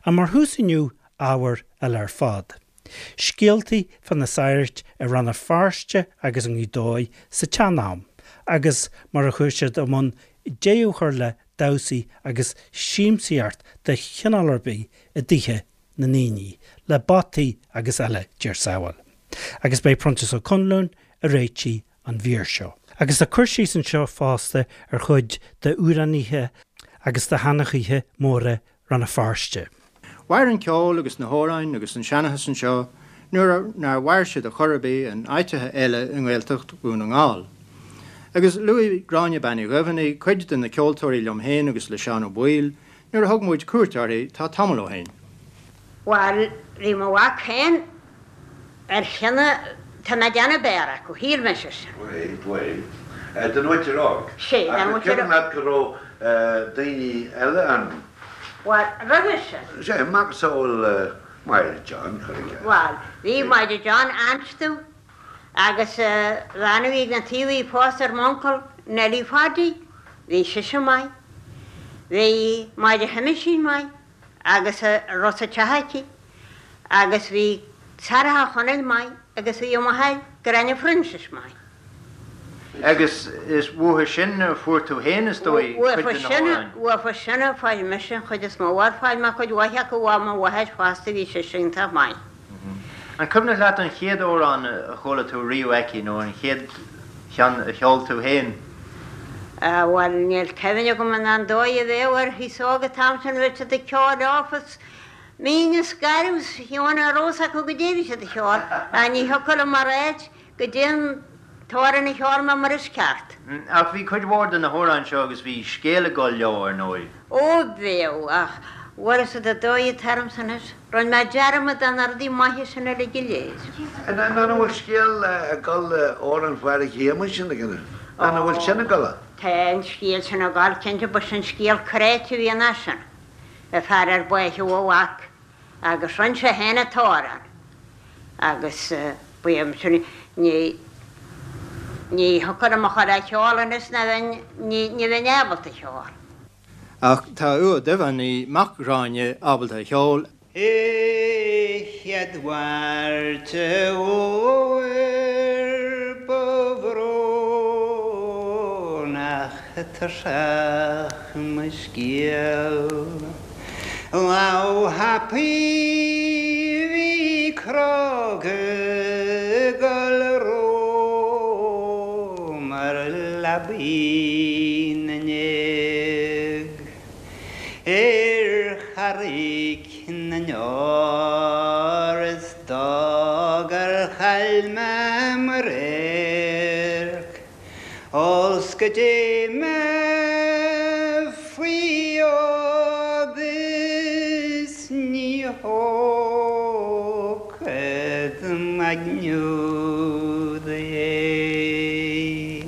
Ach mar thús inniu, ábhar eile ar fad. Scéaltaí fá na sagairt i Rann na Feirste agus i nGaoth Dobhair sa tsean-am agus mar a chuaigh siad i mbun deireadh a chur le damhsaí agus siamsaíocht de chineál ar bith i dtithe na ndaoine, le bataí agus eile, Dia ár sábháil. Agus beidh Proinsias Ó Conluain ag réitigh an mhír seo. Agus tá cur síos anseo fosta ar chuid d'amhránaithe agus de sheanchaithe móra Rann na Feirste. Mhair an ceol agus na hamhráin agus an seanchas anseo nuair nár mhair siad ar chor ar bith in áiteacha eile i nGaeltacht Dhún na nGall. Agus luaigh Gráinne Bean Uí Dhuibheannaigh cuid de na ceoltóirí liom féin agus le Seán Ó Baoill nuair a thug muid cuairt uirthi tá tamall ó shin. Bhuel, bhí mo mhac féin ar chinneadh, tá mé ag déanamh b'fhearr acu, shíl mise sin. Bhuel, bhuel, den mhuintir óg. Sea, den mhuintir óg. Ach cuimhin leat go raibh daoine eile ann? Bhuel, roimhe sin. Sea, macasamhail Máire John, cuir i gcás. Bhuel, bhí Máire John anstu agus bhean a bhí ag na taobh a bhí pósta ar m'uncail, Nellie Pháidí, bhí sise maith. Bhí Máire Sheamaisín maith. agus a raibh sa teach aici, agus bhí Sarah Chonaill maith agus bhí a máthair Gráinne Phroinsiais maith. Agus is uathu sin a fuair tú féin, is dóigh, cuid de na hamhráin? Uafa sin a fuair mise an chuid is mó, bhuel fuair mé cuid mhaith acu ó mo mháthair fosta, bhí sise iontach maith. An cuimhneach leat an chéad amhrán a chuala tú riamh aici nó an chéad cheann a cheol tú féin? Bhuel, níl cuimhne agam an an dóigh a bheadh ar thús óg an t-am sin, bheadh siad ag ceol leofa is mín is garbh is fiú ní raibh fhios acu goidé a bhí siad a cheol, ach ní thiocfadh liom a ráit goidé an t-amhrán a cheol mé mar is ceart. Ach bhí cuid mhór de na hamhráin seo agus bhí scéal ag dul leo, ar ndóigh. Ó, bheadh, ach bhfuil fhios agat an dóigh atá ormsa anois, rinne mé dearmad de na rudaí maithe sin uilig go léir. An bhfuil scéal ag dul le amhrán Phádraig Shéamuis sin ag an An bhfuil sin ag dul? Tá an scéal sin ag dul, cinnte, ba sin scéal cráite a bhí ansin, an fear ar báitheadh a mhac agus rinn sé féin an t-amhrán agus ba é sin, ní, ní thiocfadh liom a chur á cheol anois ná bheinn, ní, ní bheinn ábalta a cheol. Ach tá Aodh Ó Duibheannaigh, mac Ghráinne, ábalta a cheol. I chéad Mháirt an Fhómhair ba bhrónach tuirseach mo scéal. Lá thapaidh bhí cróga ag gol romham ar leabaidh na ndéag ar Charraig na nDeor is dóigh gur chaill mé mo radharc. Ós go dté mé faoi fhód is ní thógfad m'aigne úd é.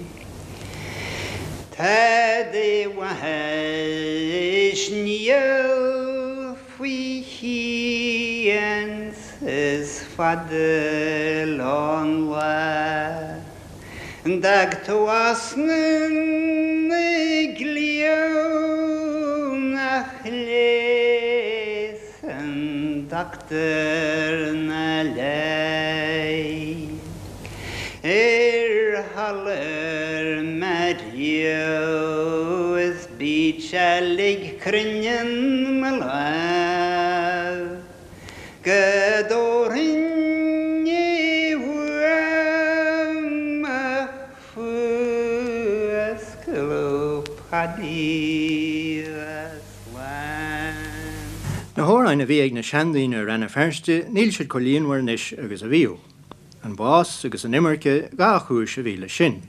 Tada mhaith is níl faoi chian is fada an lá. D'fhág tú osna na gcliabh nach leigheasann dochtúir ná leigh. Ar sholur mé riamh is bíd seilg cruinneann mo lámh. Go dtabharfainn é uaim ach fuascladh Paidí bheith slán. Na hamhráin a bhí ag na seandaoine i Rann na Feirste níl siad chomh líonmhar anois agus a bhíodh. An bás agus an imirce dhá chúis a bhí leis sin.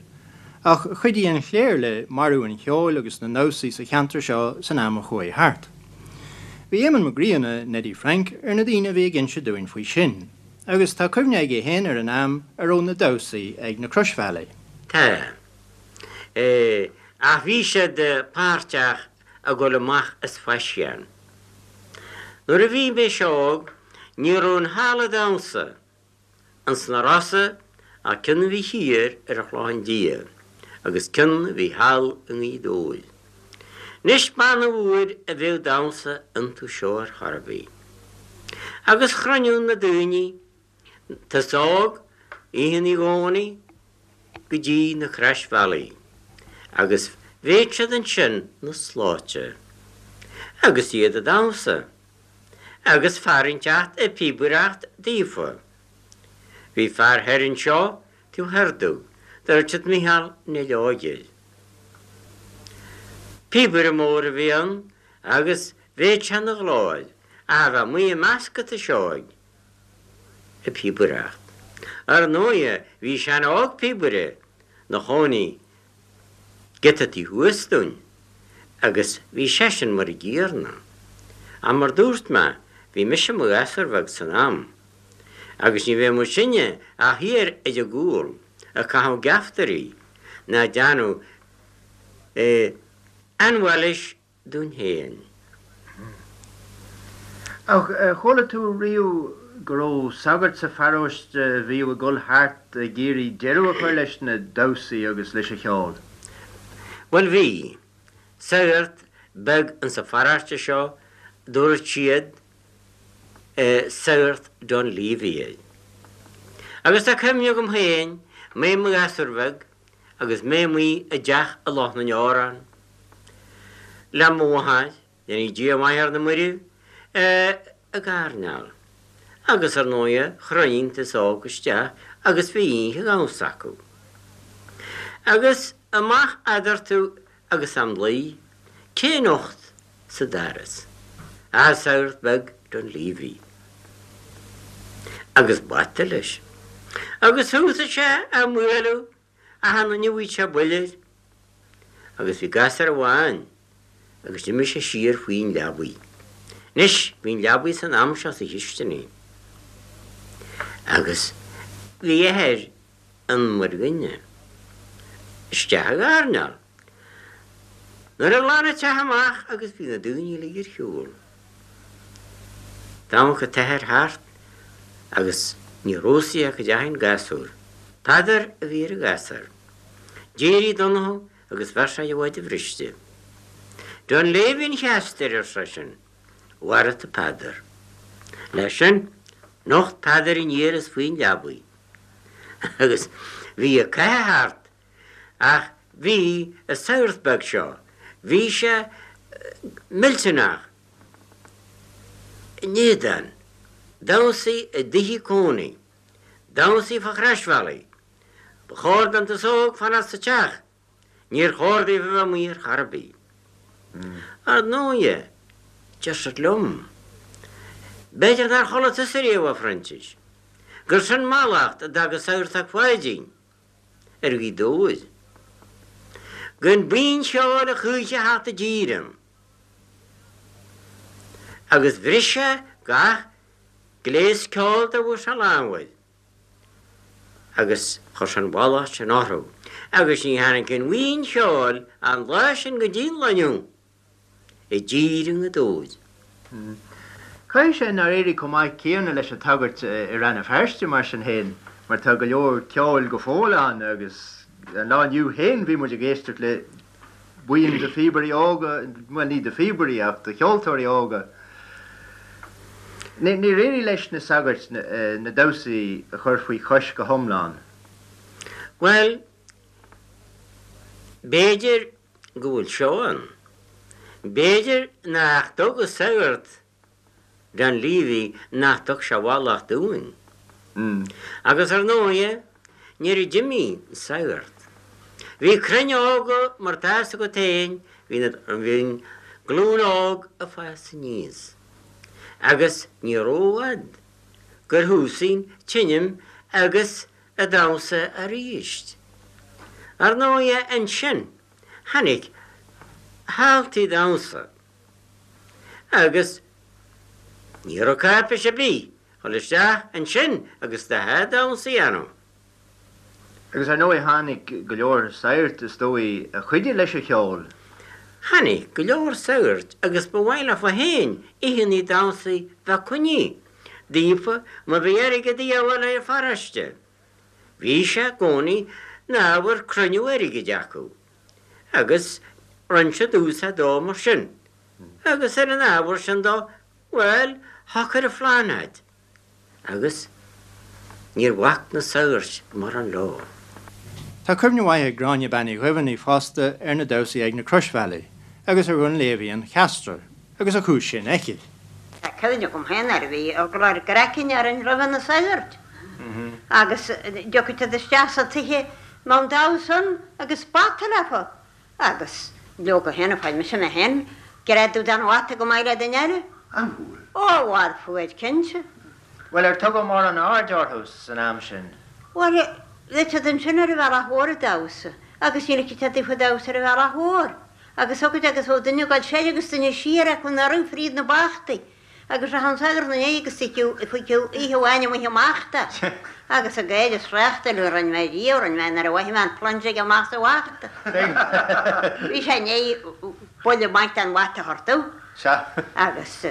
Ach chuidigh an chléir le marú an cheoil agus na ndamhsaí sa cheantar seo san am a chuaigh thart. Bhí Éamonn Mac Grianna, Neidí Frainc, ar na daoine a bhí ag inse dúinn faoi sin. Agus tá cuimhne aige féin ar an am a raibh na damhsaí ag na Croisbhealaí. Tá. Ach bhí siad páirteach ag dul amach as faisean. Nuair a bhí mise óg ní raibh aon halla damhsa Ins na Rosa ach ceann a bhí thiar ar an Chlochán Liath agus ceann a bhí thall i nGaoth Dobhair. Anois b'annamh uair a bheadh damhsa iontu seo ar chor ar bith. Agus chruinneodh na daoine an t-aos óg oícheannaí Dhomhnaigh go dtí na croisbhealaí agus bhéadh siad ansin 'na slóite agus iad ag damhsa agus fear inteacht ag píobaireacht daofa. Bhí fear thoir anseo taobh thoir domh, dúirt siad Micheál Néill Óig air. Píobaire mór a bhí ann agus bhéadh sé 'na ghlór ach a bheith amuigh i measc an t-aois óig ag píobaireacht. Ar ndóighe bhí Seán Óg píobaire 'na chónaí giota taobh thuas dúinn agus bhí seisean mar a gcéanna. Ach mar dúirt mé bhí mise mo ghasúr bheag san am agus ní bheadh muid sinne ach thiar ar an gcúl ag caitheamh geaftairí ná ag déanamh ainbhailis dúinn féin. Ach ar chuala tú riamh go raibh sagart sa pharóiste a bhíodh ag dul thart ag iarraidh deireadh a chur leis na damhsaí agus leis an cheol? Bhuel bhí. Sagart beag insa pharóiste seo, dúirt siad Sagart Dunleavy air. Agus tá cuimhne agam féin, mé i mo ghasúr bheag agus mé amuigh i dteach i Loch na nDeorán, le mo mháthair, déanfaidh Dia maith ar na mairbh, ag airneál. Agus ar ndóighe chruinnigh an t-aos óg isteach agus bhí oíche dhamhsa acu. Agus amach eadarthu agus am luí, cé nocht sa doras ach an sagart beag Dunleavy. Agus bata leis. Agus thosaigh sé á mbualadh Achan duine a bhfaigheadh sé buille air agus bhí gasúr amháin agus d'imigh sé siar faoin leabaidh. Anois bhí an leabaidh san am seo sa chisteanaigh agus bhí athair an mhuirghine isteach ag airneál. Nuair a ghlan an teach amach agus bhí na daoine uilig ar shiúl. D'amharc an t-athair thart agus ní raibh a fhios aige cá dteachaigh an gasúr. Peadar a bhí ar an ghasúr. D'éirigh Donnchadh agus bheir sé a mhaide bhriste. Dunleavy an cheastair, ar seisean, mharaigh tú Peadar. Leis sin, nocht Peadar aniar is faoin leabaidh agus bhí an cath thart ach bhí an sagart beag seo, bhí sé millteanach in éadan damhsaí i dtithe cónaí, damhsaí fá chroisbhealaí. Ba chóir don t-aos óg fanacht sa teach, níor chóir daofa bheith amuigh ar chor ar bith. Ar ndóighe, deir siad liom, b'fhéidir nár chuala tusa riamh, a Phroinsiais, gur sin mallacht a d'fhág an Sagart Ó Pháidín ar Ghaoth Dobhair. Gan buíon cheoil a choíche a theacht i dtír ann. Agus bhris sé gach gléas ceoil dá bhfuair sé lámh air agus chuir sé an mhallacht sin orthu agus ní tháinig aon bhuíon cheoil an lá sin go dtí an lá inniu. i dtír i nGaoth Dobhair. Caithfidh sé nár éirigh chomh maith céanna leis an tsagart i Rann na Feirste mar sin féin mar tá go leor ceoil go fóill ann agus an lá inniu féin bhí muid ag éisteacht le buíon de phíobairí óga, bhuel ní de phíobairí ach de cheoltóirí óga. Níor éirigh leis na sagairt na damhsaí a chur faoi chois go hiomlán. Bhuel, b'fhéidir go bhfuil seo ann. B'fhéidir nach dtug an sagart Dunleavy nach dtug sé mhallacht dúinn. Agus ar ndóighe, nuair a d'imigh an sagart, bhí crainn óga mar tá fhios agat féin, bhí na, bhí an glúin óg ag fás aníos. Agus ní rófhad gur thosaigh an tseinm agus an damhsa aríst. Ar ndóighe ansin tháinig halltaí damhsa agus ní raibh cáipéis ar bith dhul isteach ansin agus do sháith damhsa a dhéanamh. Agus ar ndóigh tháinig go leor sagart is dóigh a chuidigh leis an cheol. Tháinig go leor sagart agus ba mhaith leofa féin oícheannaí damhsaí bheith coinnithe daofa má bhí airgead a dhíobháil ar an pharóiste. Bhí sé i gcónaí 'na ábhar cruinniú airgid acu agus. Rinn siad úsáid dó mar sin. Agus ar an ábhar sin dó, bhuel, shocair an Phláinéad. Agus níor bhac na sagairt mórán leo. Tá cuimhne mhaith ag Gráinne Bean Uí Dhuibheannaigh fosta ar na damhsaí ag na Croisbhealaí agus ar Dhunleavy an Cheastra agus a chúis sin aici. Tá cuimhne agam féin air, bhí eagla ár gcraicinn orainn roimhe na sagairt agus dtiocfadh siad isteach sa tigh mbeadh an damhsa ann agus bata leofa Agus leoga féin, fuair mise mé féin greadadh den bhata go maith le duine eile. An bhfuair? Ó, bhuel, fuair, cinnte. Bhuel, ar tugadh mórán aird orthu san am sin? Bhuel, bheadh siad ansin ar an bhealach mhór ag damhsa, agus ní ligfeadh siad daofa damhsa ar an bhealach mhór. Agus thiocfadh agus bheadh duine ag dul soir agus duine siar acu anuraidh fríd na bachtaí. Agus rachadh an sagart ina ndiaidh agus fuiceadh oíche amháin amuigh amach de. Agus ag gáire is thráchtáil a rinne mé riamh, rinne mé nuair a mhothaigh mé an plunge aige amach sa bhachta. Bhí sé i ndiaidh buille maith den bhata a thabhairt domh. Agus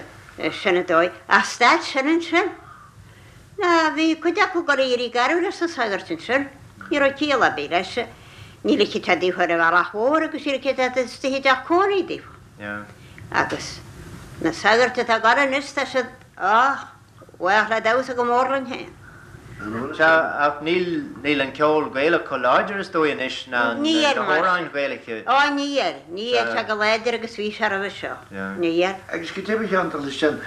sin an dóigh. Ach stad sin ansin. Ná bhí cuid acu ag dul ag éirí garbh leis na sagairt ansin. Ní raibh ciall ar bith leis. Ní ligfeadh sé daofa ar an bhealach mhór agus ní ligfeadh sé istigh i dteach cónaí daofa. Agus na sagairt atá ag gabháil anois, tá siad á bhfách le damhsa go mór linn féin. Sea, ach níl, níl an ceol Gaelach chomh láidir is dóigh anois ná na hamhráin Ghaelacha. Ó, níl, níl sé chomh láidir agus bhí sé roimhe seo. Níl. Agus go deimhin a Sheáin, leis sin,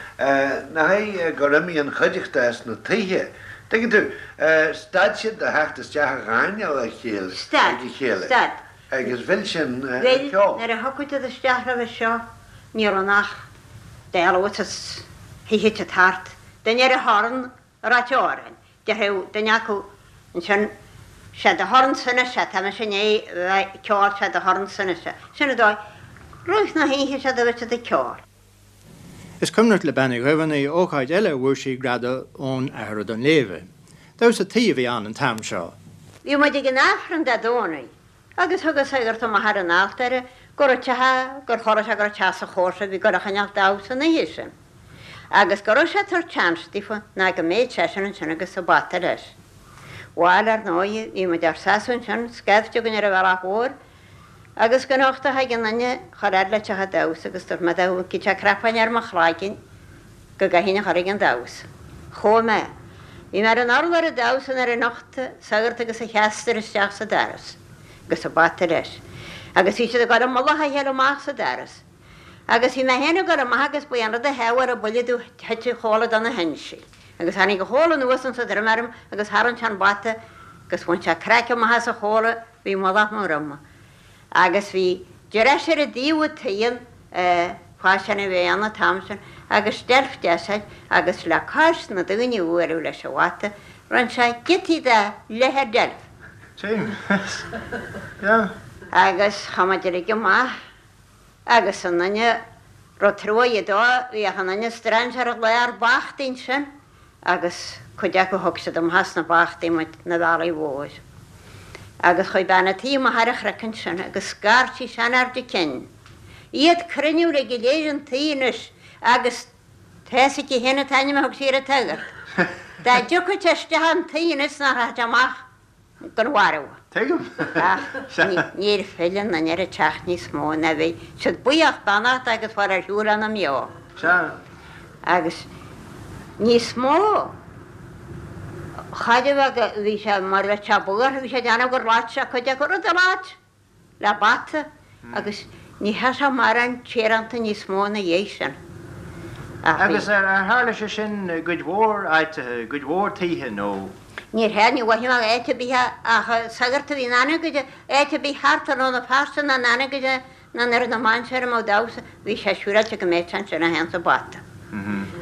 nach é gur imigh an chuideachta as na tithe, tuigeann tú, stad siad de theacht isteach a dh'airneál a chéile, ag a chéile. Stad, stad. Agus mhill sin an Bhuel, ceol. nuair a thiocfadh siad isteach roimhe seo, ní raibh ann ach dealbh is thitfeadh siad thart, duine ar a thorn ag ráit amhráin. Déarfadh duine acu ansin, 'Sé do thorn-sa anois é, tá mise i ndiaidh bheith ag ceol, sé do thorn-sa anois é. Sin an dóigh. Rith na hoíche sé do bheith siad ag ceol. Is cuimhneach le Bean Uí Dhuibheannaigh ócáid eile a bhfuair sí greadadh ón Athair Ó Duinnshléibhe. Damhsa tuí a bhí ann an t-am seo. Bhí muid ag an Aifreann Dé Domhnaigh agus thug an sagart amach ar an altóir go raibh teach, gur chuala sé go raibh teach sa chomharsa a bhí ag dul a choinneáil damhsa an oíche sin agus go raibh sé ag tabhairt seans daofa ná go mbeadh seisean ansin agus an bata leis. Bhail, ar ndóigh, bhí muid ár seasamh ansin, scaifte againn ar an bhealach mhór, Agus go nocht a thig an duine chomh fhad le teach an damhsa agus dúirt mé dá bhfaighfeadh sé cnapán ar mo chloigeann go gcaithfinn a chur ag an damhsa. Chuaigh mé. Bhí mé ar an urlár ag damhsa nuair a nocht an sagart agus a cheaster isteach sa doras agus an bata leis. Agus bhí siad ag dul i mullach a chéile amach sa doras. Agus bhí mé féin ag dul amach agus ba é an rud a theagmháil an buille domh thit an chomhla de na hinsí. Agus tháinig an chomhla anuas insa droim orm agus tharraing sé an bata agus bhain sé craiceann amach as an chomhla Bhí mullach mo dhroma agus bhí dris ar an dtaobh an t-aon faisean a bhí ann an t-am sin agus deilf deas air agus le cois na daoine a bhualadh leis an bhata rinne sé giotaí de leath deilf. Agus chuaigh muid uilig amach agus an duine raibh truaighe dó bhíodh an duine strainséir i lár bachtaí ansin agus cuid acu thug siad amach as na bachtaí muid 'na bhealaigh mhóir. Agus chuaigh bean a' tí amach ar an chnoc ansin agus scairt sí seanfhear de cinn. Iad cruinniú uilig go léir an tí anois agus tá's aici féin an t-ainm a thug sí ar an tsagart. Dá dtiocfadh sé isteach an tí anois nach rachadh sé amach gan mharbhadh. Tuigim. Ach níor phill an duine ar an teach níos mó ná bhí siad buíoch beannach agus fáil ar shiúl ina mbeo. Sea. Agus níos mó cha raibh bhí sé mar bheadh sé buartha, bhí sé ag déanamh gur loit sé cuid acu, rud a loit le bata agus ní theadh sé mórán tíoránta níos mó ina dhiaidh sin. Ach bhí. Agus ar tharla sé sin i gcuid mhór áiteacha, i gcuid mhór tithe nó? Níor tharla, ní mhothaigh mé áit ar bith ach sagart a bhí in Anagaire, áit ar bith thart ar Rann na Feirste ná in Anagaire ná i nDoire na Mainséar a mbeadh damhsa, bhí sé siúráilte go mbeadh sé ansin é féin 's a bata.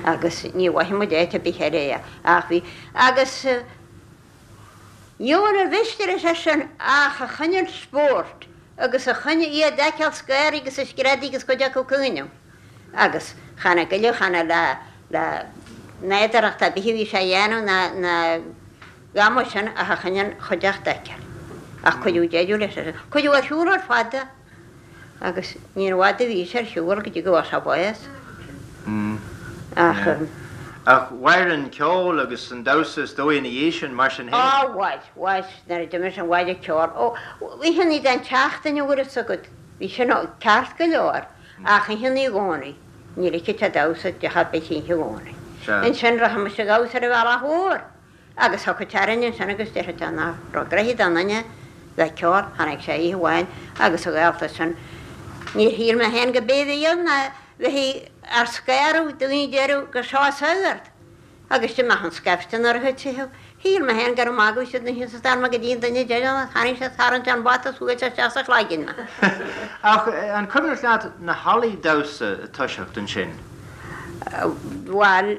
Agus ní mhothaigh muid áit ar bith eile é ach bhí. Agus. Níor mhiste leis é sin ach a choinneáil spóirt agus a choinne iad a fheiceáil 's gáirí agus ag screadaigh agus cuid acu ag caoineadh. Agus chan ag goilleadh, chan le le nádúrthacht ar bith a bhí sé a dhéanamh ná ná a dhath mar sin ach a choinne an chuideachta a fheiceáil. Ach cuireadh deireadh leis sin. Cuireadh ar shiúl ar fad é. Agus níor bhfada a bhí sé ar shiúl go dtí go bhfuair sé bás. Ach. Ach mhair an ceol agus an damhsa is dóigh ina dhiaidh sin, mar sin féin. Á, mhair, mhair, nuair a d'imigh sin mhair an ceol. Ó, oícheannaí den tseachtain an bhfuil fhios agat. Bhí sin ceart go leor ach oíche Naomh Dhomhnaigh ní ligfeadh sé damhsa i dteach ar bith oíche Dhomhnaigh. Ansin rachadh muid ag damhsa ar an bhealach mhór agus thiocfadh sé orainn ansin agus déarfadh sé nach raibh gnoithe don duine le ceol. Tháinig sé oíche amháin agus a ghaolta sin. Níor shíl mé féin go b'é a bhí ann ná bheith ár scanradh, daoine a deireadh gur seo an sagart. Agus d'imeodh an scaifte nuair a thuit sé. Shíl mé féin gur ag magadh siad ansin sa stair mar go dtí an duine deireanach, tharraing sé tarraingt an bata is bhuail sé isteach sa chloigeann mé. Ach an cuimhneach leat na hallaí damhsa ag toiseacht ansin? Bhuel,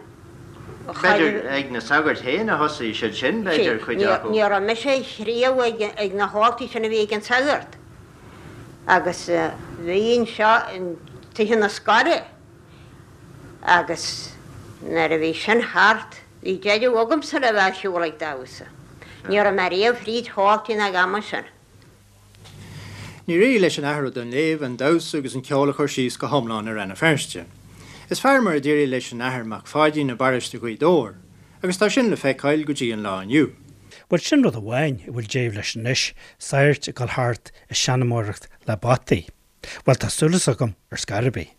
B'fhéidir ag na sagairt féin a thosaigh siad sin, b'fhéidir, cuid acu. Ní raibh mise riamh ag na halltaí sin a bhí ag an sagart. Agus bhí anseo i dtithe na scoile. Agus nuair a bhí sin thart, bhí deireadh agamsa le bheith ar shiúl ag damhsa. Ní raibh mé riamh fríd halltaí ná ag am sin. Níor éirigh leis an Athair Ó Duinnshléibhe an damhsa agus an ceol a chur síos go hiomlán i Rann na Feirste. Is fearr mar a d'éirigh leis an Athair Mac Pháidín i bparóiste Ghaoth Dobhair, agus tá sin le feiceáil go dtí an lá inniu. Bhuel, sin rud amháin a bhfuil deireadh leis anois, sagairt ag dul thart ag seanmóireacht le bataí. Bhuel, tá súil agam ar scor ar bith.